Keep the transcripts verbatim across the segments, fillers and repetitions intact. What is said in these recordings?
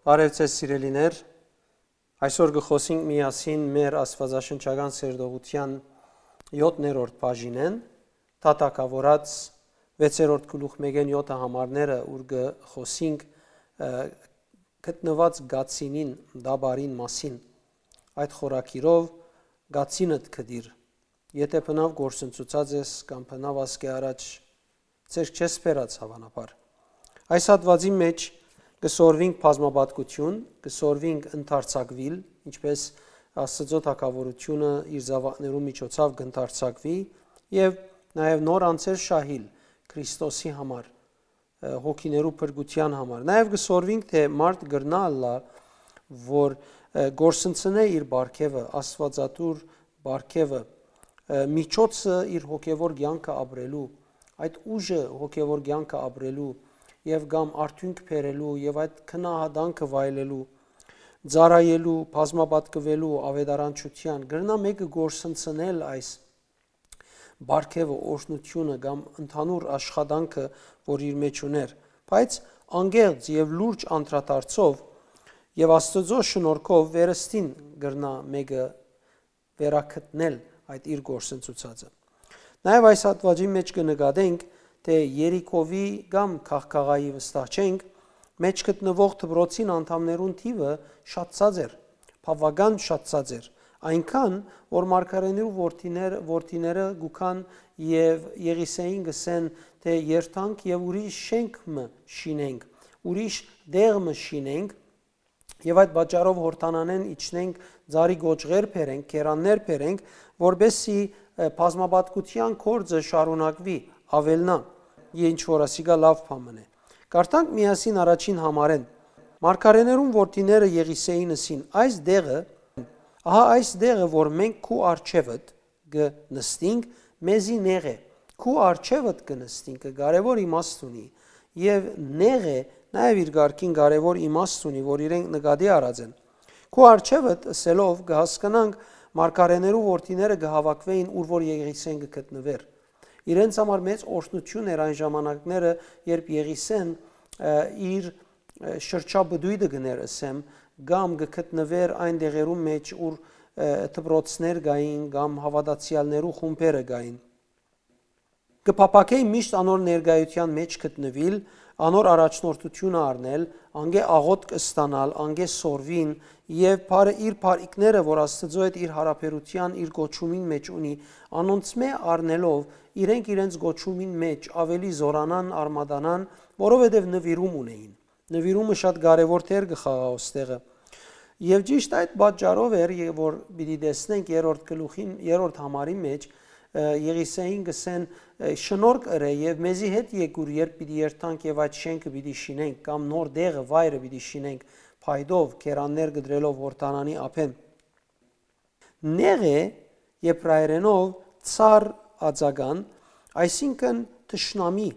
Բարեւ ձեզ, սիրելիներ։ Այսօր կը խօսենք միասին մեր աստվածաշնչական սերտողութեան յոթերորդ բաժինէն, թագաւորաց վեցերորդ գլուխ մէկէն յոթը համարները, ուր կը խօսենք, ը, գտնուած կացինին, տապարին մասին։ Այդ խորագիրով կացինդ գտիր, եթէ բնաւ կորսնցուցած ես կամ բնաւ ասկէ առաջ ձեռք չես բերած, հաւանաբար։ Այս հատուածին մէջ կը սորվինք բազմապատկություն, կը սորվինք ընդարձակուիլ, ինչպէս Աստուծոյ թագաւորութիւնը իր զաւակներուն միջոցաւ կ'ընդարձակուի, եւ նաեւ նոր անձեր շահիլ Քրիստոսի համար, ը, հոգիներու փրկութեան համար։ Նաեւ կը սորվինք, թէ մարդ կրնայ ըլլայ, որ, ը, կորսնցնէ իր պարգեւը, աստուածատուր պարգեւը, ը, միջոցը իր հոգեվոր կեանքը ապրելու, այդ ուժը հոգեվոր կեանքը ապրելու եւ կամ արդիւնք բերելու եւ այդ քնահատանքը վայելելու, ծառայելու, բազմապատկուելու, աւետարանչութեան, կրնայ մէկը կորսնցնել այս պարգեւը, օրհնութիւնը կամ ընդհանուր աշխատանքը, որ իր մէջ ունէր, բայց անկեղծ եւ լուրջ անդրադարձով եւ Աստուծոյ շնորհքով վերստին կրնայ մէկը վերագտնել այդ իր կորսնցուցածը։ Նաեւ այս հատուածին մէջ կը նկատենք, թէ Երիքովի կամ Գաղգաղայի, վստահ չենք, մէջ գտնուող դպրոցին անդամներուն թիւը շատցած էր, բաւական շատցած էր, այնքան, որ մարգարէներու որդիներ-, որդիները գուքան եւ Եղիսեին կ'ըսեն, թէ երթանք եւ ուրիշ շենք մը շինենք, ուրիշ տեղ մը շինենք, եւ այդ պատճառով Յորդանանէն իջնենք, ծառի կոճղեր բերենք, կերաններ բերենք, որպեսզի, ը, բազմապատկութեան գործը շարունակուի, աւելնայ, ինչ որ ասիկա լաւ բան մըն է։ Կարդանք միասին առաջին համարէն։ Մարգարէներուն որդիները Եղիսեին ըսին. «Այս դեղը, ահա այս դեղը, որ մենք քու առջեւդ կը նստինք, մեզի նեղ է։ Քու առջեւդ կը նստինքը կարեւոր իմաստ ունի, եւ նեղ է նաեւ իր կարգին կարեւոր իմաստ ունի, որ իրենք նկատի առած են։ Քու առջեւդ ըսելով կը հասկնանք մարգարէներու որդիները կը հաւաքուէին, ուր որ Եղիսեն կը գտնուէր»։ Իրենց համար մեծ օրհնութիւն էր այն ժամանակները, երբ Եղիսեն, ը, իր, ը, շրջապտոյտը կ'ըներ, ըսեմ, կամ կը գտնուէր այն դեղերուն մէջ, ուր, ը, դպրոցներ կային կամ հաւատացեալներու խումբերը կային։ Կը փափաքէի միշտ անոր ներկայութեան մէջ գտնուիլ, անոր առաջնորդութիւնը առնել, անկէ աղօթք ստանալ, անկէ սորվին, եւ բարը, իր բարիքները, որ Աստուծոյ հետ իր յարաբերութեան, իր կոչումին մէջ ունի, անոնցմէ առնելով, իրենք իրենց կոչումին մէջ աւելի զօրանան, արմատանան, որովհետեւ նուիրում ունէին։ Նուիրումը շատ կարեւոր դեր կը խաղայ ոստեղը։ Եւ ճիշտ այդ պատճառով էր, ե-, որ պիտի տեսնենք երրորդ գլուխին, երրորդ համարի մէջ, ը, Եղիսեին կ'ըսեն, ը, «Շնորհք ըրէ եւ մեզի հետ եկուր, երբ պիտի երթանք եւ այդ շենքը պիտի շինենք, կամ նոր դեղը, վայրը պիտի շինենք, փայտով, կերաններ կտրելով Յորդանանի ափէն»։ Նեղ է եբրայերէնով ցար ածական, այսինքն՝ թշնամի,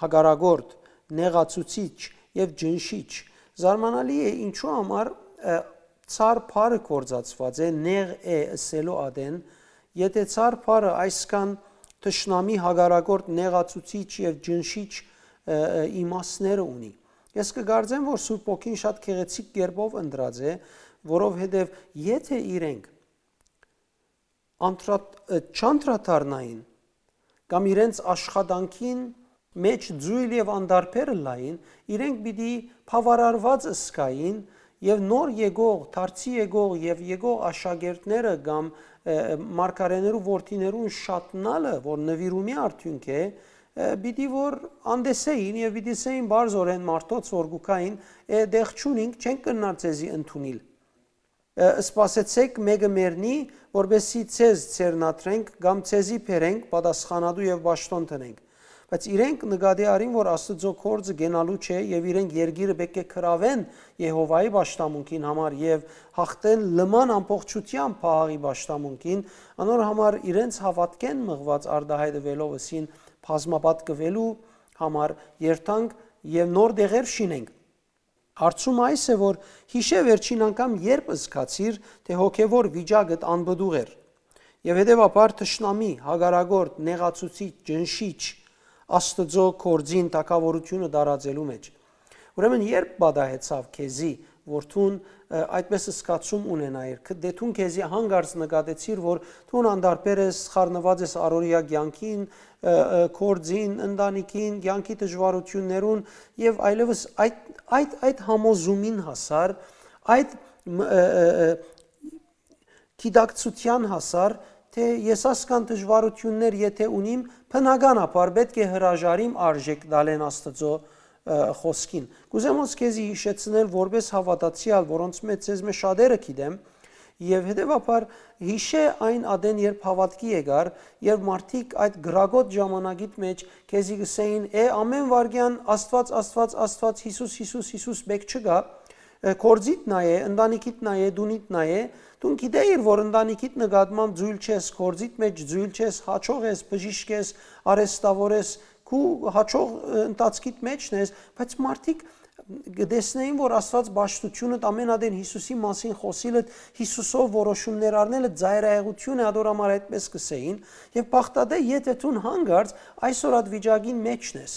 հակառակորդ, նեղացուցիչ եւ ճնշիչ։ Զարմանալի է, ինչու համար, ը, ցար բառը գործածուած է նեղ է ըսելու ատեն, եթէ ցար բառը այսքան թշնամի, հակառակորդ, նեղացուցիչ եւ ճնշիչ, ը, ը, իմաստները ունի։ Ես կը կարծեմ, որ Սուրբ Հոգին շատ գեղեցիկ կերպով ընտրած է, որովհետեւ եթէ իրենք անդրատ-, ը, չանդրադառնային կամ իրենց աշխատանքին մէջ ձոյլ եւ անդարբեր ըլլային, իրենք պիտի բաւարարուած ըսկային եւ նոր եկող, դարձի եկող եւ եկող աշակերտները կամ, ը, մարգարէներու որդիներուն շատնալը, որ նուիրումի արդիւնք է, ը, պիտի որ անտեսեին եւ պիտի սեին բարձորեն մարդոց, որ գուքային, «Է, դեղ չունինք, չենք կրնար ձեզի ընդունիլ»։ Ը, սպասեցէք, մէկը մեռնի, որպեսզի ձեզ ձեռնադրենք կամ ձեզի բերենք, պատասխանատու եւ պաշտօն դնենք։ Բայց իրենք նկատի առին, որ Աստուծոյ գործը կենալու չէ եւ իրենք երկիրը պէտք է գրաւեն Եհովայի պաշտամունքին համար եւ յաղթեն լման ամբողջութեամբ Փահաղի պաշտամունքին, անոր համար իրենց հաւատքէն մղուած արտահայտուելով ըսին բազմապատկուելու համար երթանք եւ նոր դեղեր շինենք։ Հարցումը այս է, որ յիշէ վերջին անգամ երբ զգացիր, թէ հոգեվոր վիճակդ անպտուղ էր, եւ հետեւաբար թշնամի, հակառակորդ, նեղացուցիչ, ճնշիչ, Աստուծոյ գործին թագաւորութիւնը տարածելու մէջ։ Ուրեմն երբ պատահեցաւ քեզի, որ դուն, ը, այդպես զգացում ունենայիր, ք-, դե դուն քեզի հանկարծ նկատեցիր, որ դուն անդարբեր ես, խառնուած ես առօրեայ կեանքին, ը, ը, գործին, ընտանիքին, կեանքի դժուարութիւններուն եւ այլեւս այդ, այդ, այդ համոզումին հասար, այդ, մ-, ը, ը, ը, գիտակցութեան հասար, թէ ես ասկան դժուարութիւններ եթէ ունիմ, բնականաբար պէտք է հրաժարիմ արժէք տալէն Աստուծոյ, ը, խօսքին։ Կ'ուզեմ հոս քեզի յիշեցնել որպէս հաւատացեալ, որոնց մէջ ձեզմէ շատերը գիտեմ, եւ հետեւաբար յիշէ այն ատեն, երբ հաւատքի եկար, երբ մարդիկ այդ կրակոտ ժամանակիդ մէջ քեզի կ'ըսէին. «Է, ամէն վայրկեան Աստուած, Աստուած, Աստուած, Յիսուս, Յիսուս, Յիսուս մէկ չկայ», ը, գործիդ նայէ, ընտանիքիդ նայէ, դունիդ նայէ, դուն գիտէիր, որ ընտանիքիդ նկատմամբ ձոյլ չես, գործիդ մէջ ձոյլ չես, յաջող ես, բժիշկ ես, արհեստաւոր ես, քու յաջող, ը, ընթացքիդ մէջն ես, բայց մարդիկ կը տեսնէին, որ Աստուած պաշտութիւնը ամէն ատեն Յիսուսի մասին խօսիլը, Յիսուսով որոշումներ առնելը ծայրայեղութիւն է, ադոր համար այդպես կ'ըսէին, եւ բաղդատէ, եթէ դուն հանկարծ այսօր այդ վիճակին մէջն ես,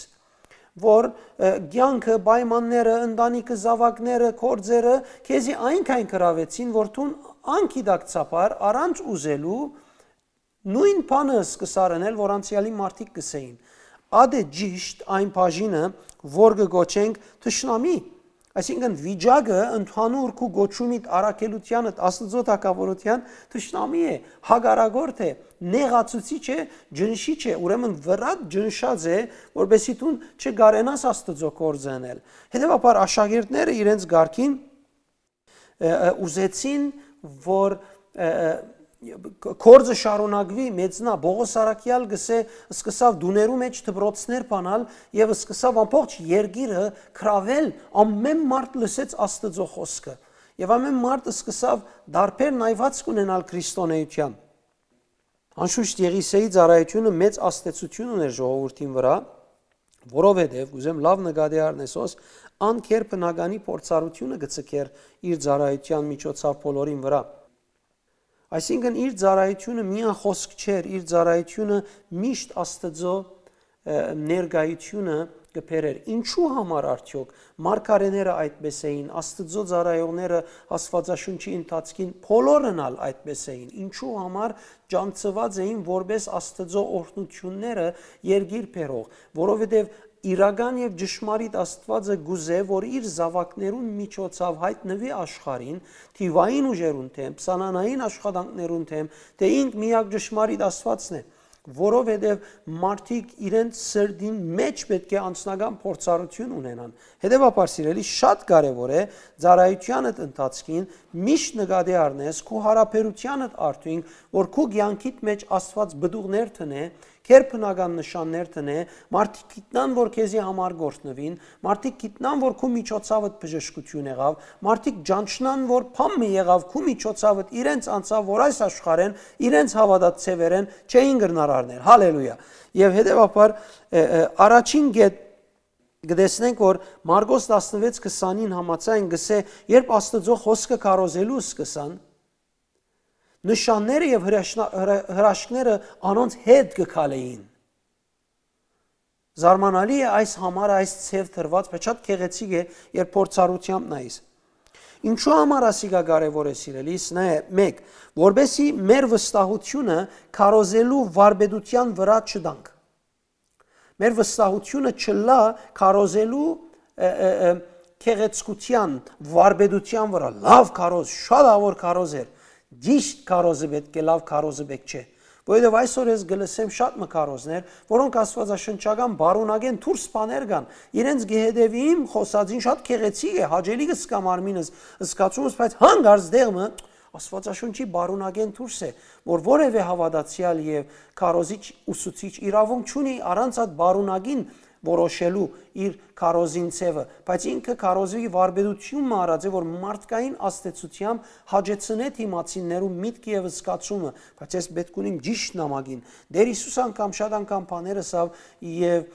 որ, ը, կեանքը, պայմանները, ընտանիքը, զաւակները, գործերը քեզի այնքան գրաւեցին, որ դուն անգիտակցաբար, առանց ուզելու, նոյն բանը սկսար ընել, որ անցեալի մարդիկ կ'ըսէին. «Ատե ճիշտ այն բաժինը, որ կը կոչենք թշնամի»։ Այսինքն, վիճակը ընդհանուր քու կոչումիդ, առաքելութեանդ, Աստուծոյ թագաւորութեան թշնամի է, հակառակորդ է, նեղացուցիչ է, ճնշիչ է, ուրեմն վրադ ճնշած է, որպեսզի դուն չկարենաս Աստուծոյ գործը ընել։ Հետեւաբար աշակերտները իրենց կարգին, ը, ը, ուզեցին, որ, ը, ը, գործը շարունակուի, մեծնայ։ Պողոս առաքեալ կ'ըսէ, սկսաւ տուներու մէջ դպրոցներ բանալ եւ սկսաւ ամբողջ երկիրը գրաւել, ամէն մարդ լսեց Աստուծոյ խօսքը եւ ամէն մարդ սկսաւ տարբեր նայուածք ունենալ քրիստոնէութեան։ Անշուշտ Եղիսէի ծառայութիւնը մեծ ազդեցութիւն ունէր ժողովուրդին վրայ, որովհետեւ, կ'ուզեմ լաւ նկատի առնես, հոս ան գերբնականի փորձառութիւնը կը ձգէր իր ծառայութեան միջոցաւ բոլորին վրայ։ Այսինքն, իր ծառայութիւնը միայն խօսք չէր, իր ծառայութիւնը միշտ Աստուծոյ, ը, ներկայութիւնը կը բերէր։ Ինչու համար արդեօք մարգարեները այդպես էին, Աստուծոյ ծառայողները Աստուածաշունչի ընթացքին բոլորն ալ այդպես էին։ Ինչու համար ճանչցուած էին որպէս Աստուծոյ օրհնութիւնները երկիր բերող, որովհետեւ իրական եւ ճշմարիտ Աստուածը կ'ուզէ, որ իր զաւակներուն միջոցաւ յայտնուի աշխարհին, թիւային ուժերուն դէմ, սանանային աշխատանքներուն դէմ, թէ ինք միակ ճշմարիտ Աստուածն է, որովհետեւ մարդիկ իրենց սրտին մէջ պէտք է անձնական փորձառութիւն ունենան։ Հետեւաբար, սիրելի, շատ կարեւոր է ծառայութեանդ ընթացքին միշտ նկատի առնես քու յարաբերութեանդ արդիւնք, որ քու կեանքիդ մէջ Աստուած պտուղներ դնէ, գերբնական նշաններ դնէ, մարդիկ գիտնան, որ քեզի համար կ'օրհնուին, մարդիկ գիտնան, որ քու միջոցաւդ բժշկութիւն եղաւ, մարդիկ ճանչնան, որ բան մը եղաւ քու միջոցաւդ, իրենց անցաւ, որ այս աշխարհէն իրենց հաւատած ձեւերէն չէին կրնար առնել։ Հալելույա։ Եւ հետեւաբար, ը, ը, առաջին կետ կը տեսնենք, որ Մարկոս տասնվեց քսանին համաձայն կ'ըսէ, երբ Աստուծոյ խօսքը քարոզելու սկսան, նշանները եւ հրաշնա-, հրա-, հրաշքները անոնց հետ կը քալէին։ Զարմանալի է այս համար, այս ձև դրված, բայց շատ գեղեցիկ է, երբ փորձառութեամբ նայես։ Ինչու համար ասիկա կարեւոր է, սիրելիս, նայ, մէկ, որպեսզի մեր վստահութիւնը քարոզելու վարպետութեան վրայ չտանք։ Մեր վստահութիւնը չլա քարոզելու, ը, ը, ը, գեղեցկութեան, վարպետութեան վրայ։ Լաւ քարոզ, շատ ավոր քարոզ էր։ Ճիշտ քարոզը պէտք է, լաւ քարոզը պէտք չէ։ Որովհետեւ այսօր ես կը լսեմ շատ մը քարոզներ, որոնք աստուածաշնչական բարունակէն դուրս բաներ կան։ Իրենց կը հետեւիմ, խօսածին շատ գեղեցիկ է, հաճելի կը զգամ արմինս, զգացումս, բայց հանկարծ դեղ մը Աստուածաշունչի բարունակէն դուրս է, որ որեւէ հաւատացեալ եւ քարոզիչ, ուսուցիչ իրաւունք չունի առանց այդ բարունակին որոշելու իր քարոզին ձևը, բայց ինքը քարոզի վարպետութիւն մը արած է, որ մարդկային ազդեցութեամբ հաճեցնէ դիմացիններու միտքը եւ զգացումը, բայց ես պէտք ունիմ ճիշտ նամակին։ Տէր Յիսուս անգամ շատ անգամ բաներ ըսաւ եւ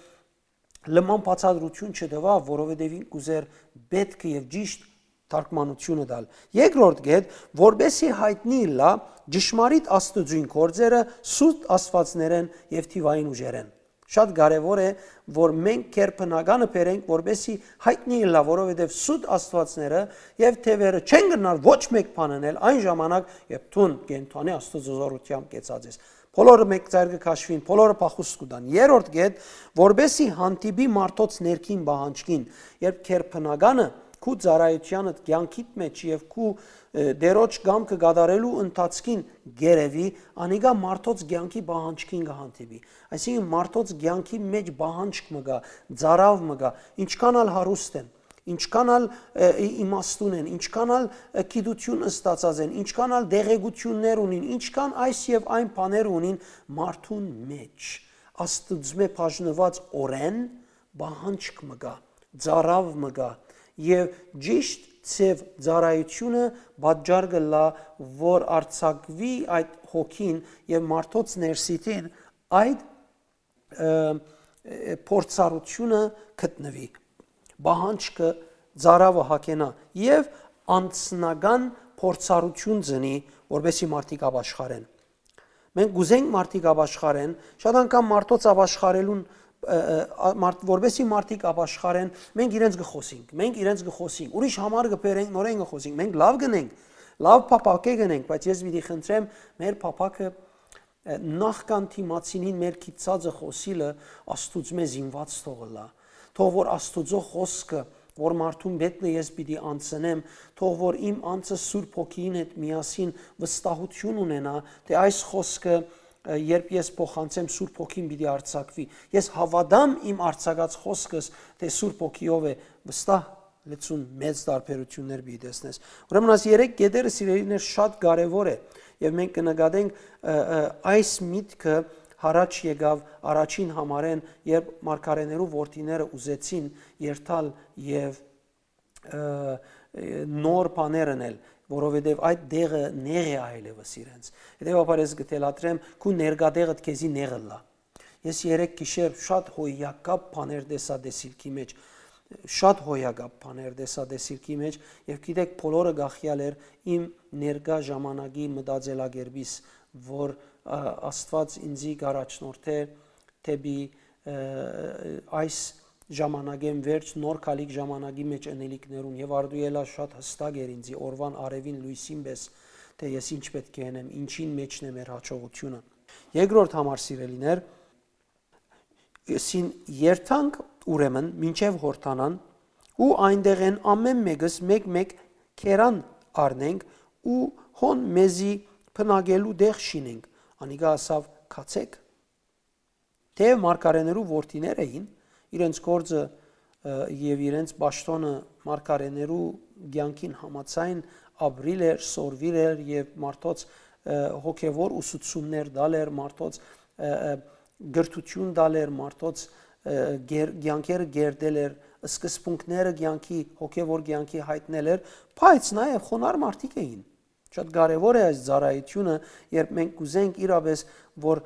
լման բացատրութիւն չտուաւ, որովհետեւ ինք կ'ուզէր պէտքը եւ ճիշտ թարգմանութիւնը տալ։ Երկրորդ կետ, որպեսզի յայտնի ըլլայ ճշմարիտ Աստուծոյն գործերը սուտ աստուածներէն եւ թիւային ուժերէն։ Շատ կարեւոր է, որ մենք գերբնականը բերենք, որպեսզի յայտնի ըլլայ, որովհետեւ սուտ աստուածները եւ թեւերը չեն կրնար ոչ մէկ բան ընել այն ժամանակ, երբ դուն կենդանի Աստուծոյ զօրութեամբ կեցած ես։ Բոլորը մէկ ծայր կը քաշուին, բոլորը փախուստ կու տան։ Երրորդ կետ, որպեսզի հանդիպի մարդոց ներքին պահանջքին, երբ գերբնականը քու ծառայութեանդ, կեանքիդ մէջ եւ քու, ը, Տէրոջ կամքը կատարելու ընթացքին կ'երեւի, անիկա մարդոց կեանքի պահանջքին կը հանդիպի։ Այսինքն՝ մարդոց կեանքի մէջ պահանջք մը կայ, ծարաւ մը կայ, ինչքան ալ հարուստ են, ինչքան ալ, ը, ի-, իմաստուն են, ինչքան ալ, ը, գիտութիւն ստացած են, ինչքան ալ տեղեկութիւններ ունին, ինչքան այս եւ այն բաներ ունին, մարդուն մէջ Աստուծմէ բաժնուած օրէն պահանջք մը կայ, ծարաւ մը կայ, եւ ճիշտ ձեւ ծառայութիւնը պատճառ կ'ըլլայ, որ արձակուի այդ հոգին եւ մարդոց ներսիդին այդ, ը, ը, փորձառութիւնը գտնուի, պահանջքը, ծարաւը հագենայ եւ անձնական փորձառութիւն ծնի, որպեսզի մարդիկ ապաշխարեն։ Մենք կ'ուզենք մարդիկ ապաշխարեն, շատ անգամ մարդոց ապաշխարելուն, ը, ը, ա-, մարդ-, որպեսզի մարդիկ ապաշխարեն, մենք իրենց կը խօսինք, մենք իրենց կը խօսինք, ուրիշ համար կը բերենք, նորէն կը խօսինք, մենք լաւ կ'ընենք, լաւ փափաք կ'ընենք, բայց ես պիտի խնդրեմ մեր փափաքը, ը, նախքան դիմացինին մեր գիտցածը խօսիլը Աստուծմէ զինուած թող ըլլայ։ Թող որ Աստուծոյ խօսքը, որ մարդուն մէջ է, ես պիտի անցնեմ, թող որ իմ անձը Սուրբ Հոգիին հետ միասին վստահութիւն ունենայ, թէ այս խօսքը, ը, երբ ես փոխանցեմ, Սուրբ Հոգին պիտի արձակուի։ Ես հաւատամ իմ արձակած խօսքս, թէ Սուրբ Հոգիով է, վստահ լեցուն մեծ տարբերութիւններ պիտի տեսնես։ Ուրեմն այս երեք կետերը, սիրելիներ, շատ կարեւոր է, եւ մենք կը նկատենք, ը, ը, այս միտքը յառաջ եկաւ առաջին համարէն, երբ մարգարէներու որդիները ուզեցին երթալ եւ, ը, ը, նոր բաներ ընել, որովհետեւ այդ դեղը նեղ է այլեւս իրենց։ Հետեւաբար ես կը թելադրեմ, քու ներկատեղդ քեզի նեղ ըլլայ։ Ես երեկ գիշեր շատ հոյակապ բաներ տեսայ տեսիլքի մէջ, շատ հոյակապ բաներ տեսայ տեսիլքի մէջ, եւ գիտեք, բոլորը կախեալ էր իմ ներկայ ժամանակի մտածելակերպից, որ, ա, Աստուած ինձի կ'առաջնորդէ դէպի, ը, այս ժամանակէն վերջ նոր գալիք ժամանակի մէջ ընելիքներուն, եւ արդու ելայ շատ յստակ էր ինձի օրուան արեւին լոյսին պէս, թէ ես ինչ պէտք է ընեմ, ինչին մէջն է մեր յաջողութիւնը։ Երկրորդ համար, սիրելիներ, սին երթանք ուրեմն մինչեւ Յորդանան ու այնտեղէն ամէն մէկս մէկ-մէկ քերան առնենք ու հոն մեզի բնակելու տեղ շինենք։ Անիկա ասաւ. «Գացեք»։ Թէեւ մարգարէներու որդիներ էին, իրենց գործը, ը, եւ իրենց պաշտօնը մարգարէներու կեանքին համաձայն ապրիլ էր, սորվիլ էր եւ մարդոց, ը, հոգեւոր ուսուցումներ տալ էր, մարդոց, ը, ը, կրթութիւն տալ էր, մարդոց, ը, գեր-, կեանքերը կերտել էր, սկզբունքները կեանքի, հոգեւոր կեանքի յայտնել էր, բայց նաեւ խոնար մարդիկ էին։ Շատ կարեւոր է այս ծառայութիւնը, երբ մենք կ'ուզենք իրապէս, որ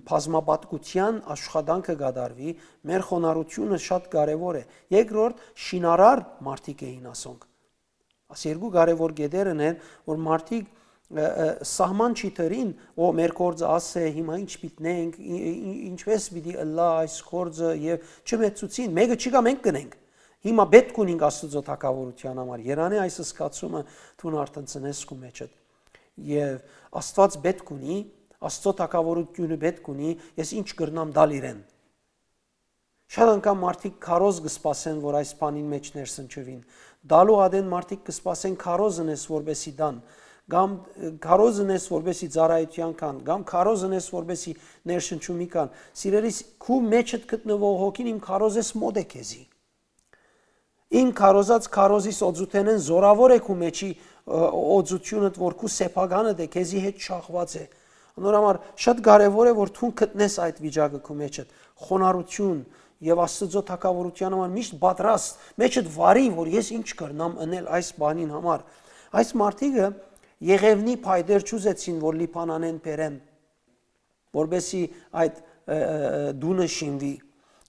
բազմապատկութեան աշխատանքը կատարուի, մեր խոնարհութիւնը շատ կարեւոր է։ Երկրորդ, շինարար մարդիկ էին ասոնք։ Աս երկու կարեւոր կետերն են, որ մարդիկ, ը, ը, սահման չի դրին, «Ո, մեր գործը աս է, հիմա ինչ պիտի նենք, ի-, ի-, ինչպէս պիտի ըլլայ այս գործը», եւ չմեծցուցին, մէկը չկայ, մենք կ'ընենք։ Հիմա պէտք ունինք Աստուծոյ թագաւորութեան համար։ Երանի այս զգացումը դուն արդեն ծնես քու մեջդ։ Եւ Աստուած պէտք ունի, Աստուծոյ թագաւորութիւնը պէտք ունի, ես ինչ կրնամ տալ իրեն։ Շատ անգամ մարդիկ քարոզ կը սպասեն, որ այս բանին մէջ ներսնչուին։ Տալու ատեն մարդիկ կը սպասեն քարոզ ընես, որպեսի տան, կամ, ը, քարոզ ընես, որպեսի ծառայութեան կան, կամ քարոզ ընես, որպեսի ներշնչումի կան։ Սիրելիս, քու մեջդ գտնուող հոգին իմ քարոզես մօտ է քեզի։ Իմ քարոզած քարոզիս օծութենէն զօրաւոր է քու մեջի, ը, օծութիւնդ, որ քու սեփականդ է, քեզի հետ շահված է։ Անոր համար շատ կարեւոր է, որ դուն գտնես այդ վիճակը քու մեջդ, խոնարհութիւն եւ Աստուծոյ թագաւորութեան համար միշտ պատրաստ, մեջդ վարի, որ ես ինչ կրնամ ընել այս բանին համար։ Այս մարդիկը Եղեւնի փայտեր չուզեցին, որ Լիբանանէն բերեն, որպեսզի այդ, ը, ը, ը, տունը շինուի,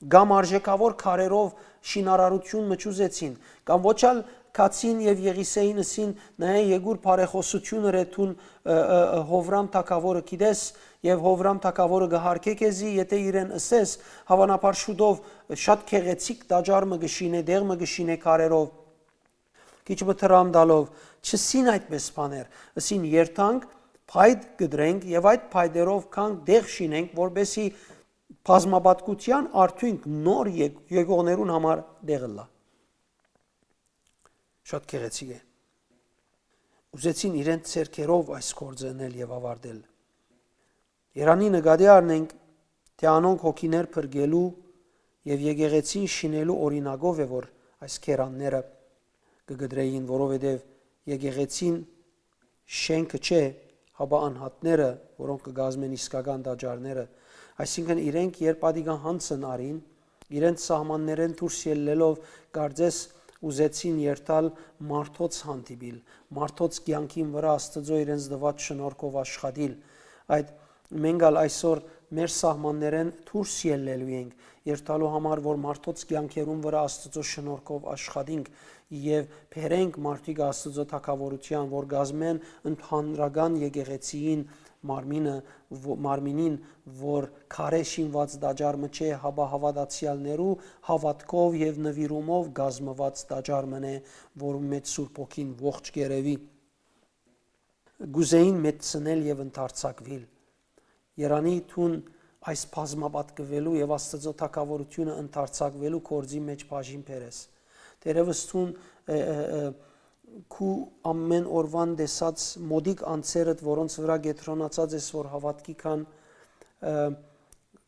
կամ արժեքավոր քարերով շինարարութիւն մը չուզեցին, կամ ոչ ալ Քացին եւ Եղիսեին ըսին. «Նայէ, Եկուր, բարեխօսութիւն ըրէ դուն, ը, ը, ը, Յովրամ թագաւորը գիտես, եւ Յովրամ թագաւորը կը յարգէ քեզի, եթէ իրեն ըսես, հաւանաբար շուտով շատ գեղեցիկ տաճար մը կը շինէ, տեղ մը կը շինէ քարերով»։ Քիչ մը դրամ տալով, չըսին այդպէս բաներ, ըսին. «Երթանք, փայտ կտրենք եւ այդ փայտերով գանք տեղ շինենք, որպեսզի բազմապատկութեան արդիւնք նոր եկողներուն համար տեղ ըլլայ»։ Շատ գեղեցիկ է։ Ուզեցին իրենց ձեռքերով այս գործը ընել եւ ավարտել։ Երանի նկատի առնենք, թէ անոնք հոգիներ փրկելու եւ եկեղեցին շինելու օրինակով է, որ այս քերանները կը կտրեին, որովհետեւ եկեղեցին շէնքը չէ, հապա անհատները, որոնք կը կազմեն իսկական տաճարները։ Այսինքն իրենք, երբ ատիկա յանցն առին, իրենց սահմաններէն դուրս ելլելով, կարծես ուզեցին երթալ մարդոց հանդիպիլ, մարդոց կեանքին վրայ Աստուծոյ իրենց տուած շնորհքով աշխատիլ։ Այդ մենք ալ այսօր մեր սահմաններէն դուրս ելլելու ենք, երթալու համար, որ մարդոց կեանքերուն վրայ Աստուծոյ շնորհքով աշխատինք եւ բերենք մարդիկ Աստուծոյ թագաւորութեան, որ կազմեն ընդհանրական եկեղեցիին մարմինը, ո-, մարմինին, որ քարէ շինուած տաճար մը չէ, հապա հաւատացեալներու հաւատքով եւ նուիրումով կազմուած տաճար մն է, որուն մէջ Սուրբ Հոգին ողջ կ'երեւի։ Կ'ուզէին մեծցնել եւ ընդարձակուիլ։ Երանի դուն այս բազմապատկուելու եւ Աստուծոյ թագաւորութիւնը ընդարձակուելու գործի մէջ բաժին բերես։ Թերեւս դուն, ը, ը, ը, քու ամէն օրուան տեսած մօտիկ անձերդ, որոնց վրայ կեդրոնացած ես, որ հաւատքի քան, ը,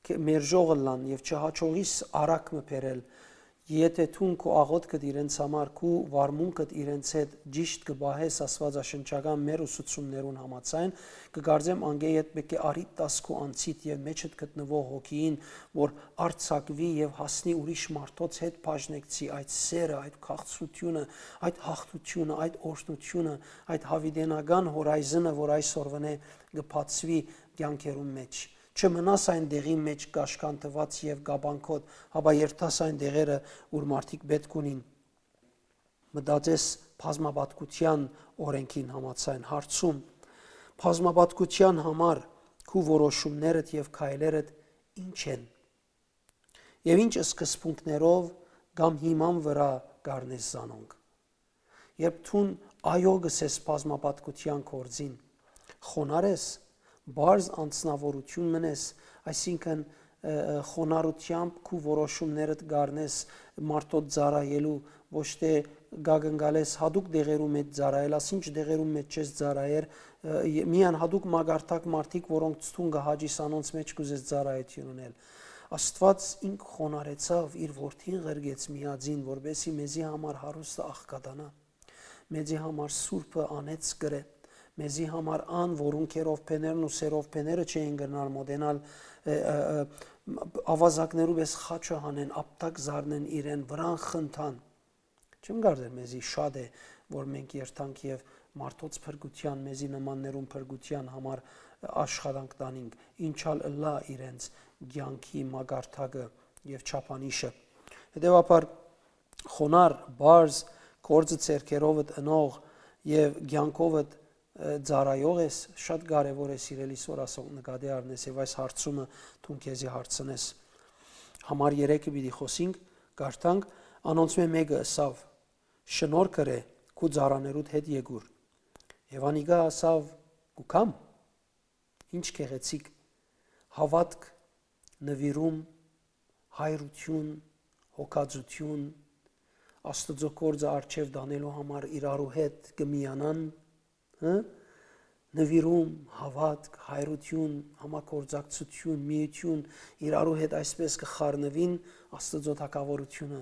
կը-, մերժող ըլլան եւ չհաջողիս արագ մը բերել, եթէ դուն քու աղօթքդ իրենց համար, քու վարմունքդ իրենց հետ ճիշտ կը պահես աստուածաշնչական մեր ուսուցումներուն համաձայն, կը կարծեմ անկէ յետ պէտք է առիթ տաս քու անձիդ եւ մեջդ գտնուող հոգիին, որ արձակուի եւ հասնի ուրիշ մարդոց հետ բաժնեկցի այդ սերը, այդ քաղցրութիւնը, այդ յաղթութիւնը, այդ օրհնութիւնը, այդ յաւիտենական հորայզնը, որ այսօրվանէ կը բացուի կեանքերուն մէջ։ Չմնաս այն տեղին մէջ կաշկանդուած եւ կապանքոտ, հապա երթաս այն տեղերը, ուր մարդիկ պէտք ունին։ Մտածես բազմապատկութեան օրենքին համաձայն, հարցում. բազմապատկութեան համար քու որոշումներդ եւ քայլերդ ի՞նչ են։ Եւ ի՞նչ սկզբունքներով կամ հիման վրայ կ'առնես զանոնք։ Երբ դուն այո կ'ըսես բազմապատկութեան գործին, խոնար ես, պարզ անձնաւորութիւն մըն ես, այսինքն, ը, ը, խոնարհութեամբ քու որոշումներդ կ'առնես մարդոց ծառայելու, ոչ թէ կակնկալես յատուկ տեղերու մէջ ծառայել, ասինչ տեղերու մէջ չես ծառայեր, ը, ե-, միայն յատուկ մակարդակ մարդիկ, որոնց դուն կը հաճիս, անոնց մէջ կ'ուզես ծառայութիւն ընել։ Աստուած ինք խոնարհեցաւ, իր որդին ղրկեց միածին, որպեսզի մեզի համար հարուստը աղքատանայ, մեզի համար սուրբը անեծ կրէ, մեզի համար ան, որուն քերովբեներն ու սերովբեները չէին կրնար մոտենալ, ը, ը, ը, ավազակներու պէս խաչը հանեն, ապտակ զարնեն իրեն, վրան խնդան։ Չեմ կարծեր մեզի շատ է, որ մենք երթանք եւ մարդոց փրկութեան, մեզի նմաններուն փրկութեան համար աշխատանք տանինք, ինչալ ըլլայ իրենց կեանքի մակարդակը եւ չափանիշը։ Հետեւաբար, խոնար, պարզ, գործը ձեռքերովդ ընող եւ կեանքովդ, ը, ծառայող ես, շատ կարեւոր է, սիրելի սոր, ասոնք նկատի առնես եւ այս հարցումը դուն քեզի հարցնես։ Համար երեքը պիտի խօսինք, կարդանք, անոնցմէ մէկը ըսաւ. «Շնորհք ըրէ քու ծառաներուդ հետ Եկուր»։ Եւ անիկա ըսաւ. «Կու գամ»։ Ինչ գեղեցիկ հաւատք, նուիրում, հայրութիւն, հոգածութիւն, Աստուծոյ գործը առջեւ տանելու համար իրարու հետ կը միանան, հը? Նուիրում, հաւատք, հայրութիւն, համագործակցութիւն, միութիւն, իրարու հետ այսպէս կը խառնուին Աստուծոյ թագաւորութիւնը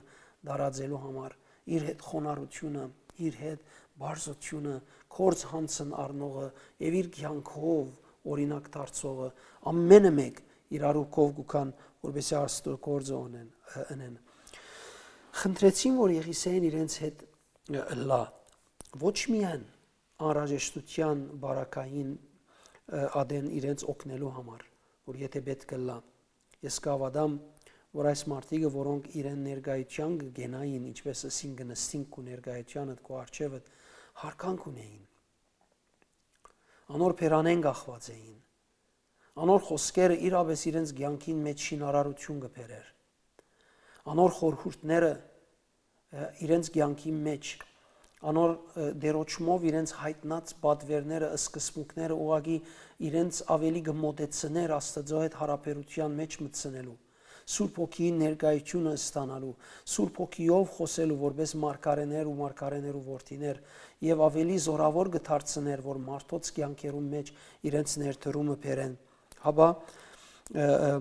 տարածելու համար, իր հետ խոնարհութիւնը, իր հետ բարձրութիւնը, գործ յանցն առնողը եւ իր կեանքով օրինակ դարձողը, ամենը մէկ իրարու քով կու գան, որպեսզի Աստուծոյ գործը ունեն, ը, ընեն։ Խնդրեցին, որ Եղիսեան իրենց հետ, ը, ըլլայ, ոչ միայն անհրաժեշտութեան բարակային, ը, ատեն իրենց օգնելու համար, որ եթէ պէտք ըլլայ, ես կհաւատամ, որ այս մարդիկը, որոնք իրեն ներկայութեան կը կենային, ինչպէս ըսին, կը նստին քու ներկայութեանդ, քու առջեւդ, յարգանք ունէին։ Անոր բերանէն կախուած էին։ Անոր խօսքերը իրապէս իրենց կեանքին մէջ շինարարութիւն կը բերէր։ Անոր խորհուրդները, ը, իրենց կեանքին մէջ, անոր, ը, դերոճմով իրենց յայտնած պատուէրները, սկզբունքները ուղղակի իրենց աւելի կը մոտեցնէր Աստուծոյ հետ յարաբերութեան մէջ մտցնելու, Սուրբ Հոգիին ներկայութիւնը ստանալու, Սուրբ Հոգիով խօսելու որպէս մարգարէներ ու մարգարէներու որդիներ, եւ աւելի զօրաւոր կը դարձնէր, որ մարդոց կեանքերուն մէջ իրենց ներդրումը բերեն։ Հապա, ը, ը,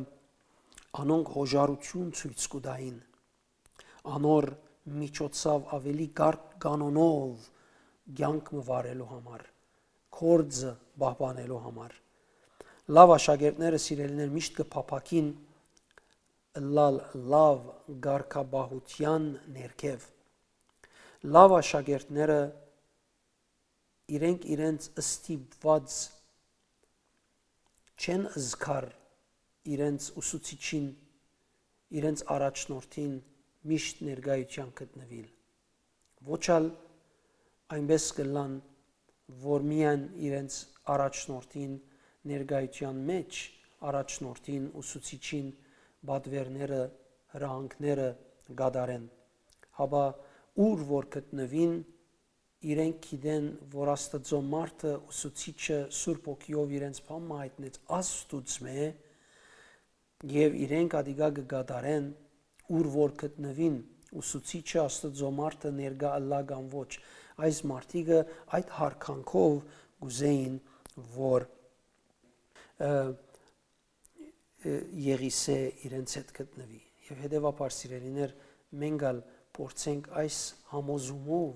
անոնք յոժարութիւն ցոյց կու տային, անոր միջոցով աւելի կարգ կանոնով կեանք մը վարելու համար, գործը պահպանելու համար։ Լաւ աշակերտները, սիրելիներ, միշտ կը փափաքին ըլլալ լաւ կարգապահութեան ներքեւ։ Լաւ աշակերտները իրենք իրենց ստիպուած չեն զգար իրենց ուսուցիչին, իրենց առաջնորդին միշտ ներկայութեան գտնուիլ։ Ոչ ալ այնպէս կ'ըլլան, որ միայն իրենց առաջնորդին ներկայութեան մէջ առաջնորդին, ուսուցիչին պատուէրները, հրահանգները կատարեն, հապա ուր որ գտնուին, իրենք գիտեն, որ Աստուծոյ մարդը, ուսուցիչը Սուրբ Հոգիով իրենց բան մը յայտնեց Աստուծմէ, եւ իրենք ատիկա կը կատարեն, ուր որ գտնուին, ուսուցիչը, Աստուծոյ մարդը ներկայ ըլլայ կամ ոչ։ Այս մարդիկը այդ յարգանքով կ'ուզէին, որ, ը, ը, Եղիսէ իրենց հետ գտնուի։ Եւ հետեւաբար, սիրելիներ, մենք ալ փորձենք այս համոզումով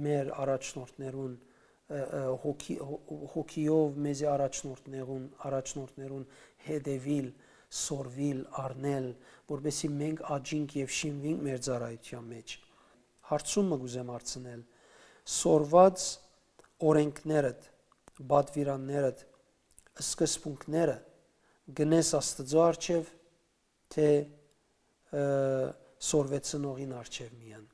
մեր առաջնորդներուն, ը, ը, հոգի-, հո-, հոգիով մեզի առաջնորդներուն, առաջնորդներուն հետեւիլ, սորվիլ, առնել, որպեսզի մենք աճինք եւ շինուինք մեր ծառայութեան մէջ։ Հարցում մը կ'ուզեմ հարցնել. սորված օրենքներդ, պատվիրաններդ, սկզբունքները գնես Աստուծոյ առջեւ, թէ, ը, սորվեցնողին առջեւ միայն։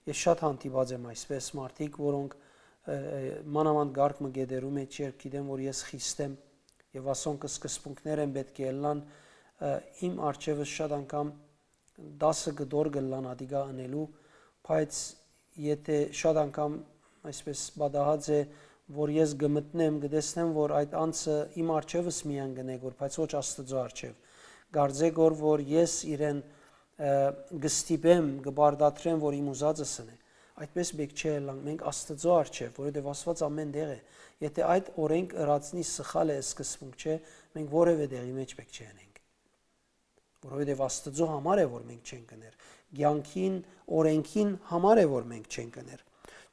Ես շատ հանդիպած եմ այսպէս մարդիկ, որոնք, ը, ը, մանաւանդ կարգ մը կէտերու մէջ, երբ գիտեմ, որ ես խիստ եմ, եւ ասոնք սկզբունքներ են պէտք է ըլլան, ը, իմ առջեւս շատ անգամ դասը կտոր կ'ըլլան ատիկա ընելու, բայց եթե շատ անգամ այսպէս պատահած է, որ ես կը մտնեմ, կը տեսնեմ, որ այդ անձը իմ առջեւս միայն կ'ընէ գոր, բայց ոչ Աստուծոյ առջեւ։ Կարծէ գոր, որ ես իրեն, ը, կը ստիպեմ, կը պարտադրեմ, որ իմ ուզածս ընէ։ Այդպէս պէտք չէ ըլլանք մենք Աստուծոյ առջեւ, որովհետեւ Աստուած ամէն տեղ է։ Եթե այդ օրենք ըրածնի սխալ է, սկզբունք չէ, մենք որեւէ տեղի մէջ պէտք չէ ընենք, որովհետեւ Աստուծոյ համար է, որ մենք չենք ըներ։ Կեանքին, օրենքին համար է, որ մենք չենք ըներ։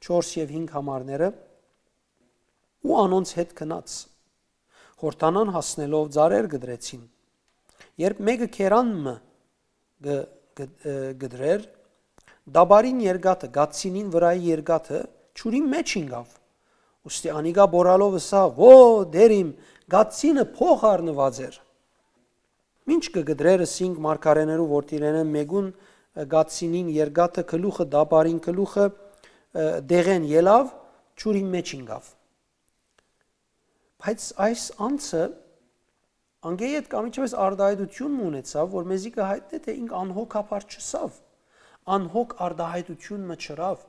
Չորս եւ հինգ համարները, ու անոնց հետ գնաց։ Յորդանան հասնելով, ծառեր կտրեցին։ Երբ մէկը քերան մը կը, կը, ը, կտրեր, տապարին երկաթը, կացինին վրայի երկաթը ջուրին մէջ ինկաւ։ Ուստի անիկա բորալով ըսաւ. «Ո, դեր իմ, կացինը փոխ առնուած էր»։ Մինչ կը կտրեր, ըսինք, մարգարէներու որդիներէն մէկուն, ը, կացինին երկաթը գլուխը, տապարին գլուխը, ը, դեղեն ելաւ, ջուրին մէջ ինկաւ։ Բայց այս անձը անկէ յետ կամ ինչպէս արտահայտութիւն մը ունեցաւ, որ մեզի կը յայտնէ, թէ ինք անհոգաբար չըսաւ, անհոգ արտահայտութիւն մը չըրաւ։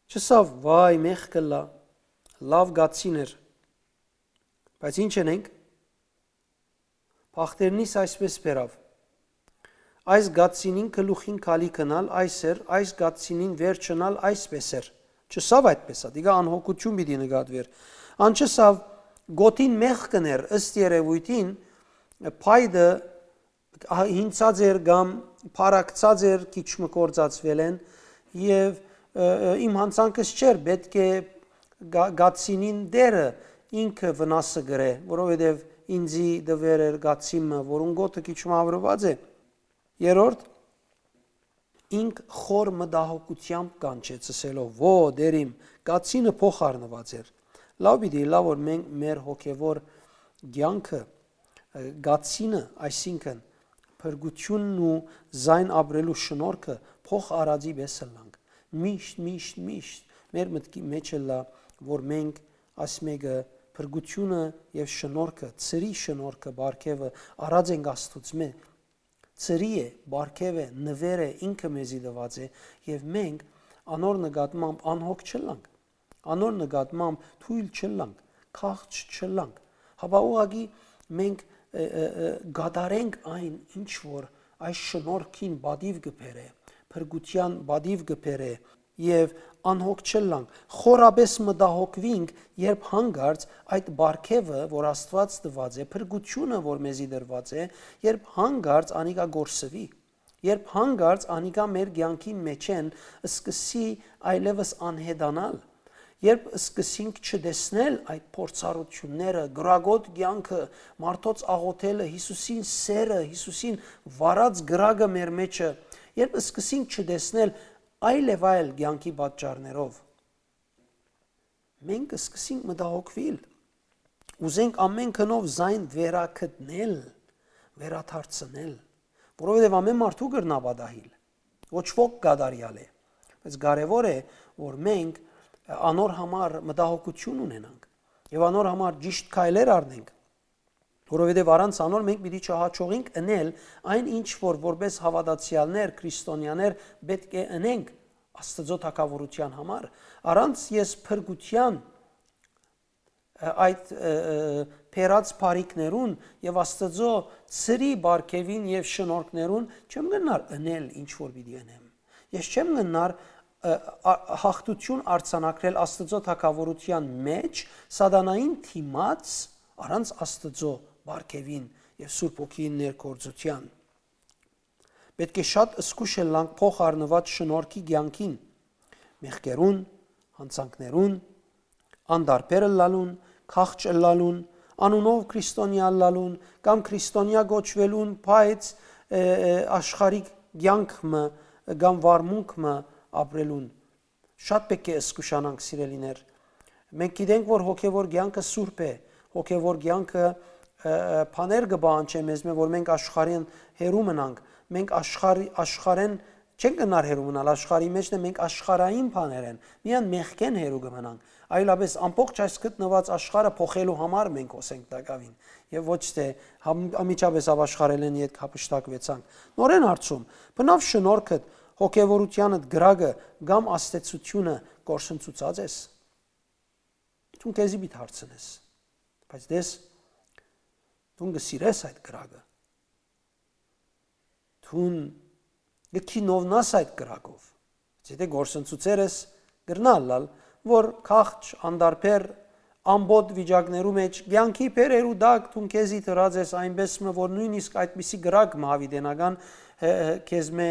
Չըսաւ. «Վայ, մեղք կ'ըլլայ, լաւ կացին էր»։ Բայց ինչ ընենք։ Բախտերնիս այսպէս բերաւ. «Այս կացինին գլուխին գալիքն ալ այս էր, այս կացինին վերջն ալ այսպէս էր»։ Չըսաւ այդպէս, ատիկա անհոգութիւն պիտի նկատուէր։ Ան չըսաւ. «Գօտին մեղքն էր», ըստ երեւոյթին, փայտը հինցած էր կամ փառակցած էր, քիչ մը կործածուելէն, եւ, ը, ը, իմ յանցանքս չէր, պէտք է գա-, կացինին դերը ինքը վնասը կրէ, որովհետեւ ինձի տուեր էր կացին մը, որուն գօտը քիչ մը յաւրուած է։ Երրորդ, ինք խոր մտահոգութեամբ կանչեց, ըսելով. «Ո, դեր իմ, կացինը փոխ առնուած էր»։ Լաւ պիտի ըլլայ, որ մենք մեր հոգեվոր կեանքը, կացինը, այսինքն փրկութիւնն ու զայն ապրելու շնորհքը փոխ արածի պէս ըլլանք։ Միշտ, միշտ, միշտ մեր մտքի մեջ ըլլայ, որ մենք այս մեկը փրկութիւնը եւ շնորհքը, ծրի շնորհքը, պարգեւը առած ենք Աստուծմէ, ծրի է, պարգեւ է, նուէր է, ինքը մեզի տուած է, եւ մենք անոր նկատմամբ անհոգ չըլլանք, անոր նկատմամբ թոյլ չըլլանք, քաղց չըլլանք, հապա ուղղակի մենք, ը, ը, ը, կատարենք այն, ինչ որ այս շնորհքին պատիւ կը բերէ, փրկութեան պատիւ կը բերէ, եւ անհոգ չըլլանք, խորապէս մտահոգուինք, երբ հանկարծ այդ պարգեւը, որ Աստուած տուած է, փրկութիւնը, որ մեզի տրուած է, երբ հանկարծ անիկա կորսուի, երբ հանկարծ անիկա մեր կեանքին մէջէն սկսի այլեւս անհետանալ, երբ սկսենք չտեսնել այդ փորձառութիւնները, կրակոտ կեանքը, մարդոց աղօթելը, Յիսուսին սերը, Յիսուսին վառած կրակը մեր մեջը, երբ սկսենք չտեսնել այլ եւ այլ կեանքի պատճառներով, մենք կսկսենք մտահոգուիլ։ Ուզենք ամէն գնով զայն վերագտնել, վերադարձնել, որովհետեւ ամէն մարդու կրնայ պատահիլ, ոչ ոք կատարեալ է, բայց կարեւոր է, որ մենք անոր համար մտահոգութիւն ունենանք եւ անոր համար ճիշտ քայլեր առնենք, որովհետեւ առանց անոր մենք պիտի չհաջողենք ընել այն, ինչ որ որպէս հաւատացեալներ, քրիստոնեաներ պէտք է ընենք Աստուծոյ թագաւորութեան համար, առանց ես փրկութեան, ը, այդ, ը, ը, բերած բարիքներուն եւ Աստուծոյ ծրի պարգեւին եւ շնորհքներուն չեմ կրնար ընել ինչ որ պիտի ընեմ։ Ես չեմ կրնար, ը, ա-, հաղթութիւն արձանագրել Աստուծոյ թագաւորութեան մէջ սատանային դիմաց առանց Աստուծոյ պարգեւին եւ Սուրբ Հոգիին ներգործութեան։ Պէտք է շատ զգուշ ըլլանք փոխ առնուած շնորհքի կեանքին, մեղքերուն, յանցանքներուն, անդարբեր ըլլալուն, քաղց ըլլալուն, անունով քրիստոնեայ ըլլալուն կամ քրիստոնեայ կոչուելուն, բայց, ը, ը, աշխարհիկ կեանք մը կամ վարմունք մը ապրելուն։ Շատ պէտք է զգուշանանք, սիրելիներ։ Մենք գիտենք, որ հոգեւոր կեանքը սուրբ է, հոգեւոր կեանքը, ը, ը, բաներ կը պահանջէ մեզմէ, որ մենք աշխարհէն հեռու մնանք։ Մենք աշխարհի-, աշխարհէն չենք կրնար հեռու մնալ, աշխարհի մէջն է, մենք աշխարհային բաներէն, միայն մեղքէն հեռու կը մնանք։ Այլապես ամբողջ այս գտնուած աշխարհը փոխելու համար մենք հոսենք տակաւին, եւ ոչ թէ համ-, անմիջապէս ապաշխարելէն ետք յափշտակուեցանք։ Նորէն հարցում, բնաւ շնորհքդ, հոգեվորութեանդ կրակը կամ աստեցությունը կորսնցուցած ես։ Դուն քեզի պիտի հարցնես, բայց տես, դուն կը սիրես այդ կրակը, դուն կը քինովնաս այդ կրակով։ Եթե կորսնցուցեր ես, կրնայ ըլլալ, որ քաղց, անդարբեր, ամբոտ վիճակներու մէջ, կեանքի բերերու տակ դուն քեզի դրած ես այնպէս մը, որ նոյնիսկ այդպիսի կրակ մը հաւիտենական, հե, հե, քեզմէ,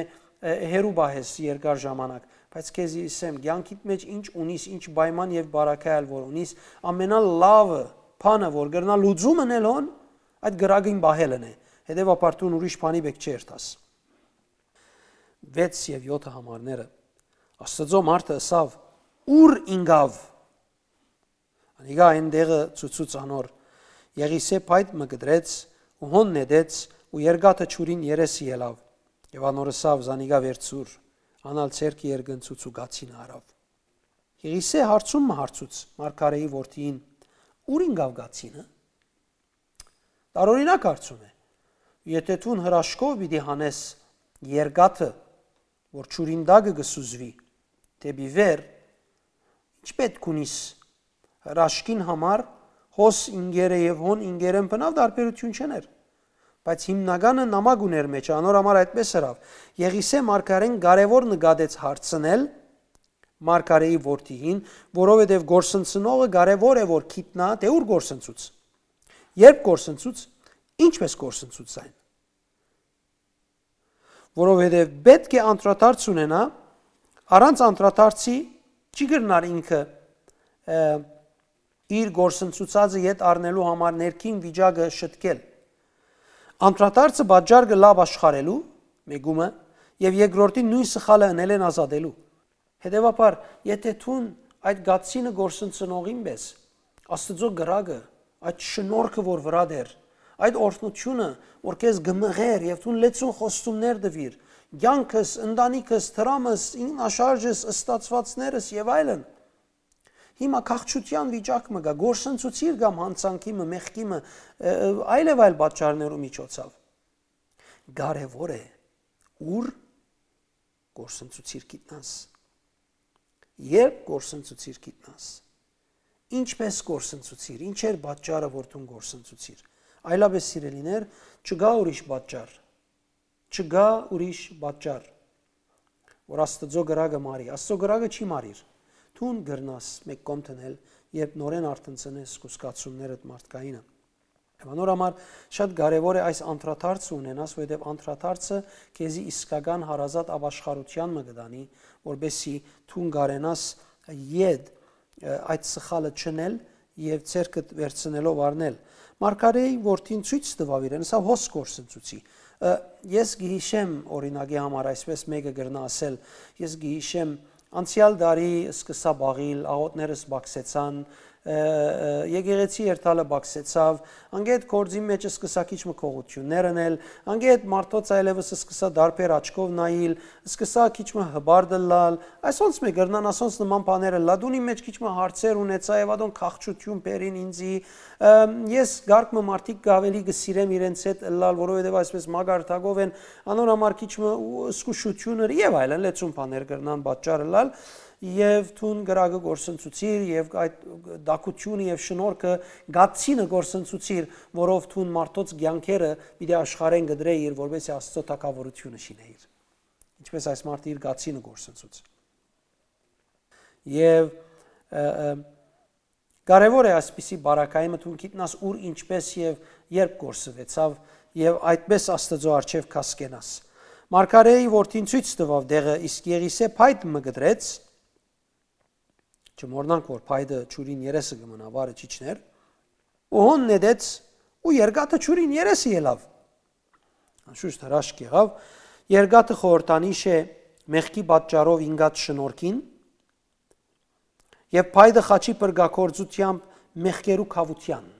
հե, հեռու պահես երկար ժամանակ։ Բայց քեզի ըսեմ, կեանքիդ մէջ ինչ ունիս, ինչ պայման եւ բարակայալ որ ունիս, ամենալավը, բանը, որ կրնայ լուծում ընել հոն, այդ կրակին պահելն է։ Հետեւաբար դուն ուրիշ բանի պէտք չէ երթաս։ Վեց եւ յոթը համարները։ Աստուծոյ մարդը ըսաւ. «Ո՞ւր ինկաւ»։ Անիկա այն տեղը ցուցուց անոր։ Եղիսէ փայտ մը կտրեց ու հոն նետեց ու երկաթը ջուրին երեսը ելաւ։ Եւ անոր ըսաւ. «Զանիկա վերցուր»։ Ան ալ ձեռքը երկնցուց ու կացինը առաւ։ Եղիսէ հարցում մը հարցուց մարգարէի որդիին. «Ո՞ւր ինկաւ կացինը»։ Տարօրինակ հարցում է։ Եթե դուն հրաշքով պիտի հանես երկաթը, որ ջուրին տակը կը սուզուի, դէպի վեր, ի՞նչ պէտք ունիս հրաշքին համար, հոս ինկերը եւ հոն ինկերեն բնաւ տարբերութիւն չեն էր։ Բայց հիմնականը նամակ ուներ մեջ, անոր համար այդպես ըրաւ։ Եղիսէ մարգարէն կարեւոր նկատեց հարցնել մարգարէի որդիին, որովհետեւ կորսնցնողը կարեւոր է որ գիտնայ, թէ ո՞ւր կորսնցուց, երբ կորսնցուց, ինչպես կորսնցուց այն։ Որովհետեւ պէտք է անդրադարձ ունենայ, առանց անդրադարձի չի կրնար ինքը, ը, իր կորսնցուցածը ետ առնելու համար ներքին վիճակը շտկել։ Անդրադարձը պատճառ կը լա ապաշխարելու, մեկումը, եւ երկրորդին նոյն սխալը ընելէն ազատելու։ Հետեւաբար, եթե դուն այդ կացինը կորսնցնողին պէս, Աստուծոյ կրակը, այդ շնորհքը, որ վրադ էր, Այդ օրհնութիւնը, որ քեզ կը մղեր եւ դուն լեցուն խոստումներ տուիր, կեանքս, ընտանիքս, դրամս, ինքնաշարժս, ստացուածներս եւ այլն, հիմա քաղցրութեան վիճակ մը կայ, կորսնցուցիր կամ յանցանքի մը, մեղքի մը, ը, ը, այլեւայլ պատճառներու միջոցով։ Կարեւոր է, ուր կորսնցուցիր գիտնաս, երբ կորսնցուցիր գիտնաս, ինչպես կորսնցուցիր, ինչ էր պատճառը, որ դուն կորսնցուցիր։ Այլապես, սիրելիներ, չկայ ուրիշ պատճառ, չկայ ուրիշ պատճառ, որ Աստուծոյ կրակը մարի։ Աստուծոյ կրակը չի մարիր։ Դուն կրնաս մէկ կողմ դնել, երբ նորէն արթնցնես քու զգացումներդ մարդկայինը։ Եւ անոր համար շատ կարեւոր է այս անդրադարձը ունենաս, որովհետեւ անդրադարձը քեզի իսկական հարազատ ապաշխարութեան մը կը տանի, որպեսզի դուն կարենաս ետ, ը, այդ սխալը չընել եւ ձեռքդ վերցնելով առնել։ Մարգարէի որդին ցոյց տուաւ իրեն, սա հոս կորսնցուցի։ Ը, ես կը յիշեմ, օրինակի համար, այսպես մէկը կրնայ ասել, ես կը յիշեմ, անցեալ տարի սկսա բաղիլ, աղօթներս բացեցան, ը, ը, եկեղեցի երթալը բացեցաւ, անգետ գործին մէջ սկսա քիչ մը քողութիւններ ընել, անգետ մարդոց այլեւս սկսա դարբեր աչքով նայիլ, սկսա քիչ մը հպարտ ըլլալ, այսոնց մը կրնան, ասոնց նման բաներ ըլլա, դունի մէջ քիչ մը հարցեր ունեցայ եւ ատոնք քաղցրութիւն բերին ինձի, ը, ես կարգ մը մարդիկ կը ավելի կը սիրեմ իրենց հետ ըլլալ, որովհետեւ այսպես մակարդակով են, անոր համար քիչ մը ու զգուշութիւնը եւ այլն լեցուն բաներ կրնան պատճառ ըլլալ, եւ դուն կրակը կորսնցուցիր, եւ այդ տակութիւնը եւ շնորհքը, գացինը կորսնցուցիր, որով դուն մարդոց կեանքերը պիտի աշխարհեն կդրեիր, որպեսզի Աստուծոյ թագաւորութիւնը շինեիր։ Ինչպես այս մարդը իր գացինը կորսնցուց։ Եւ, ը, ը, կարեւոր է այսպիսի բարակայի մը դուն գիտնաս ուր, ինչպես եւ երբ կորսուեցաւ, եւ այդպես Աստուծոյ առջեւ կասկենաս։ Մարգարէի որդին ցոյց տուաւ դեղը, իսկ Եղիսէ փայտ մը կտրեց, չմոռնանք, որ փայտը ջուրին երեսը կը մնայ, վարը չիջներ, ու հոն նետեց, ու երկաթը ջուրին երեսը ելաւ։ Անշուշտ հրաշք եղաւ, երկաթը խորհրդանիշ է մեղքի պատճառով ինկած շնորհքին, եւ փայտը խաչի փրկագործութեամբ մեղքերու քաւութեան։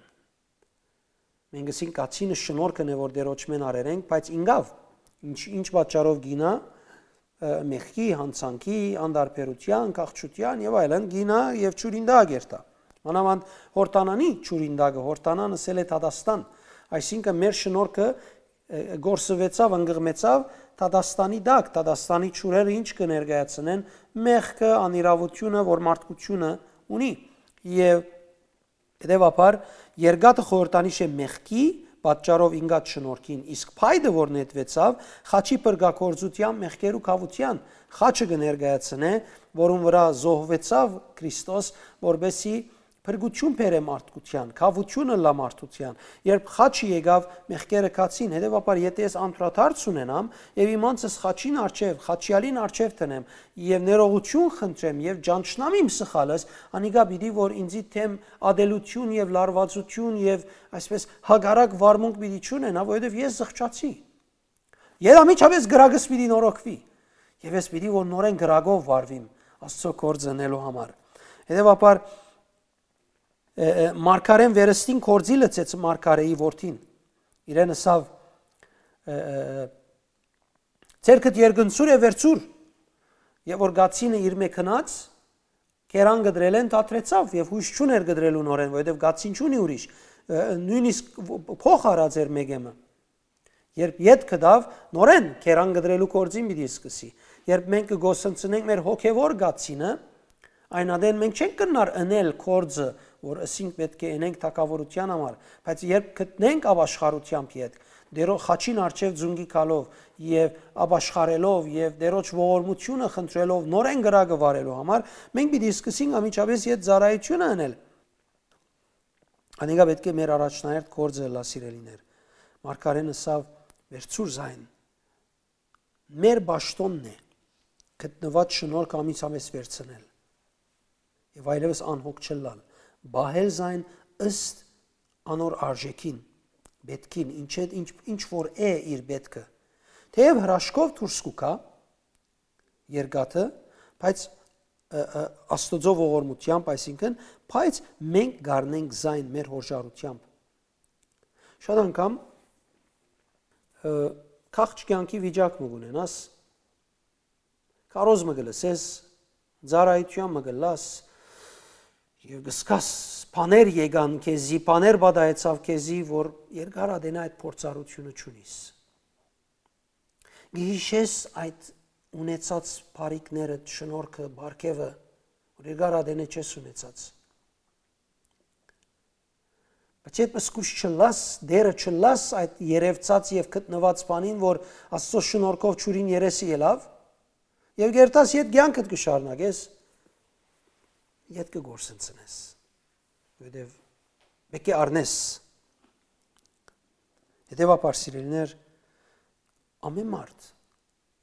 Մենք ըսինք, գացինը շնորհքն է, որ Տէրոջմէն առեր ենք, բայց ինկաւ, ինչ, ինչ պատճառով գինայ, ը, մեղքի, յանցանքի, անդարբերութեան, քաղցրութեան եւ այլն, գինայ եւ ջուրին տակ երթայ։ Մանաւանդ Յորդանանի ջուրին տակը, Յորդանան ըսել է դատաստան, այսինքն մեր շնորհքը, ը, կորսուեցաւ, ընկղմեցաւ դատաստանի տակ, դատաստանի ջուրերը ինչ կը ներկայացնեն, մեղքը, անիրաւութիւնը, որ մարդկությունը ունի։ Եւ Հետեւաբար, երկաթը խորհրդանիշ է մեղքի պատճառով ինկած շնորհքին, իսկ փայտը, որ նետուեցաւ, խաչի փրկագործութեան մեղքերու քաւութեան, խաչը կը ներկայացնէ, որուն վրայ զոհուեցաւ Քրիստոս, որպեսզի փրկութիւն բերէ մարդկութեան, քաւութիւնը լա մարդութեան։ Երբ խաչը եկաւ, մեղքերը քացին, հետեւաբար, եթե ես անդրադարձ ունենամ եւ իմ անձս խաչին առջեւ, խաչեալին առջեւ դնեմ եւ ներողութիւն խնդրեմ եւ ճանչնամ իմ սխալս, անիկա պիտի որ ինձի դէմ ատելութիւն եւ լարուածութիւն եւ այսպես հակառակ վարմունք պիտի չունենա, որովհետեւ ես զղջացի։ Եթ անմիջապէս կրակս պիտի նորոգուի եւ ես պիտի որ նորէն կրակով վարվիմ Աստուծոյ գործ ընելու համար։ Հետեւաբար, ը, ը, մարգարէն վերստին գործի լցեց մարգարէի որդին։ Իրեն ըսաւ, ը, ը, ը, «Ձեռքդ երկնցուր է, վերցուր»։ Եւ որ գացինը իր մէ գնաց, կերան կտրելէն դադրեցաւ եւ յոյս չունէր կտրելու նորէն, որովհետեւ գացին չունի ուրիշ, ը, նոյնիսկ վ-, փոխ առած էր մէկը մը։ Երբ ետ գտաւ, նորէն կերան կտրելու գործին պիտի սկսի։ Երբ մենք կը գոսնցնենք մեր հոգեվոր գացինը, այն ատեն մենք չենք կրնար ընել գործը, որ ըսինք պէտք է ընենք թագաւորութեան համար, բայց երբ գտնենք ապաշխարութեամբ ետ, Տերո խաչին առջեւ ձունկի գալով եւ ապաշխարելով եւ Տերոջ ողորմութիւնը խնդրելով նորէն կրակը վարելու համար, մենք պիտի սկսենք անմիջապէս ետ ծառայութիւնը ընել։ Անիկա պէտք է մեր առաջնահերթ գործը ըլլայ, սիրելիներ։ Մարգարէն ըսաւ. «Վերցուր զայն»։ Մեր պաշտօնն է գտնուած շնորհքը անմիջապէս վերցնել եւ այլեւս անհոգ չըլլալ, պահել զայն ըստ անոր արժեքին, պէտքին, ինչ է, ինչ, ինչ որ է իր պէտքը։ Թէեւ հրաշքով դուրս կու գայ երկաթը, բայց, ը, ը, Աստուծոյ ողորմութեամբ, այսինքն, բայց մենք կառնենք զայն մեր հոժարութեամբ։ Շատ անգամ, ը, քաղջ կեանքի վիճակ մը կունենաս, քարոզ մը կը լսես, ծառայութեան մը կը լաս, եւ կսկաս բաներ եկան քեզի, բաներ պատահեցաւ քեզի, որ երկար ատենայ այդ փորձառութիւնը չունիս։ Կհիշես այդ ունեցած բարիքներդ, շնորհքը, պարգեւը, որ երկար ատենէ չես ունեցած։ Բայց երբ զգուշ չըլլաս, դերը չըլլաս այդ երեւցած եւ գտնուած բանին, որ Աստուծոյ շնորհքով ջուրին երեսը ելաւ, եւ կերթաս ետ կեանքդ կը շարունակես, ետ կը գործընծնես, որովհետեւ պէտք է առնես։ Հետեւաբար, սիրելիներ, ամէն մարդ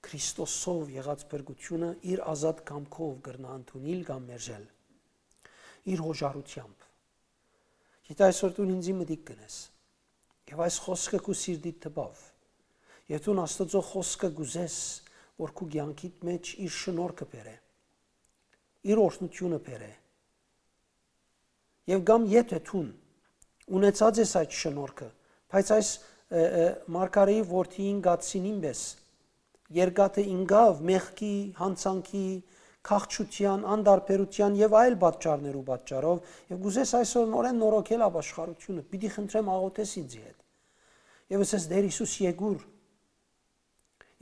Քրիստոսով եղած փրկութիւնը իր ազատ կամքով կրնայ ընդունիլ կամ մերժել, իր յօժարութեամբ։ Եթէ այսօր դուն ինծի մտիկ կ'ընես, եւ այս խօսքը քու սիրտիդ տպաւ, եւ դուն Աստուծոյ խօսքը կ'ուզես, որ քու կեանքիդ մէջ իր շնորհքը բերէ, իր օրհնութիւնը բերէ, եւ կամ եթէ դուն ունեցած ես այդ շնորհքը, բայց այս, ը, ը, մարգարէի որդիին կացինին պէս, երկաթը ինկաւ մեղքի, յանցանքի, քաղցրութեան, անտարբերութեան եւ այլ պատճառներու պատճառով, եւ կ'ուզես այսօր նորէն նորոգել ապաշխարութիւնը, պիտի խնդրեմ, աղօթես ինծի հետ։ Եւս ես, Տէր Յիսուս, եկուր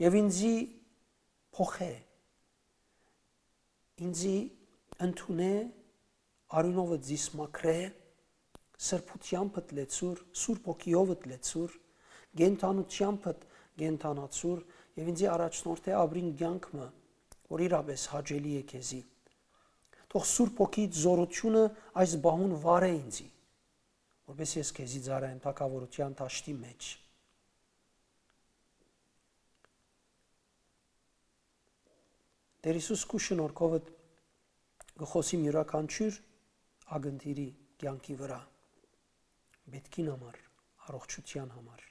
եւ ինծի փոխէ, ինծի ընդունէ, արիւնովդ զիս մաքրէ, սրբութեամբդ լեցուր, Սուրբ Հոգիովդ լեցուր, կենդանութեամբդ կենդանացուր եւ ինծի առաջնորդէ ապրիլ կեանք մը, որ իրապէս հաճելի է քեզի։ Թող Սուրբ Հոգիդ զօրութիւնը այս պահուն վարէ ինծի, որպէս ես քեզի ծառայեմ թագաւորութեան դաշտի մէջ։ Տէր Յիսուս, քու շնորհքովդ կը խօսիմ իւրաքանչիւր ակնթիրի կեանքի վրայ, պէտքին համար, առողջութեան համար։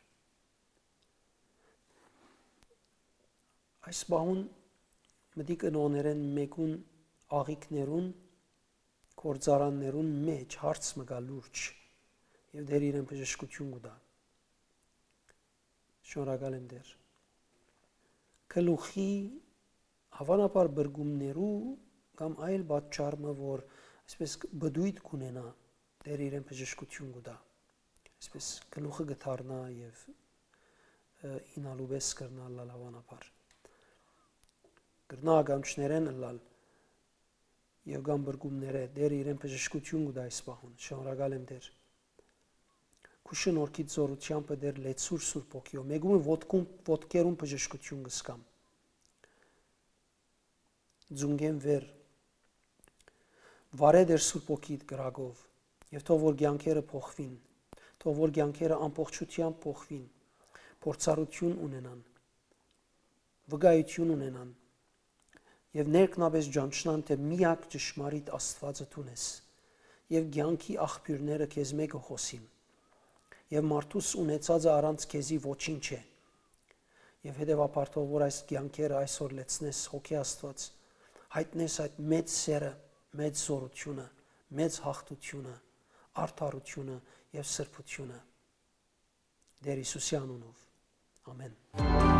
Այս պահուն մտիկ ընողներէն մէկուն աղիքներուն, գործարաններուն մէջ հարց մը կայ լուրջ, եւ Տէր իրեն բժշկութիւն կու տայ։ Շնորհակալ եմ, Տէր։ Գլուխի, հաւանաբար, բրկումներու կամ այլ պատճառ մը, որ այսպես պտոյտ կ'ունենայ, Տէր իրեն բժշկութիւն կու տայ, այսպես գլուխը կը դառնայ եւ, ը, ինալու պէս կրնայ ըլլալ, հաւանաբար։ Կրնայ ականջներէն ըլլալ եւ կամ բրկումներէ, Տէր իրեն բժշկութիւն կու տայ այս պահուն։ Շնորհակալ եմ, Տէր։ Քու շնորհքիդ զօրութեամբը, Տէր, լեցուր Սուրբ Հոգիով։ Մէկուն ոտքուն, ոտքերուն բժշկութիւն կ'ըսկամ, ծունկէն վեր, վարէ, Տէր, Սուրբ Հոգիդ կրակով, եւ թող որ կեանքերը փոխուին, թող որ կեանքերը ամբողջութեամբ փոխուին, փորձառութիւն ունենան, վկայութիւն ունենան, եւ ներքնապէս ճանչնան, թէ միակ ճշմարիտ Աստուածը դուն ես, եւ կեանքի աղբիւրները քեզմէ կը խօսին, եւ մարդուս ունեցածը առանց քեզի ոչինչ է։ Եւ հետեւաբար թող որ այս կեանքերը այսօր լեցնես, Հոգի Աստուած, յայտնես այդ մեծ սերը, մեծ զօրութիւնը, մեծ յաղթութիւնը, արդարութիւնը եւ սրբութիւնը։ Տէր Յիսուսի անունով։ Ամէն։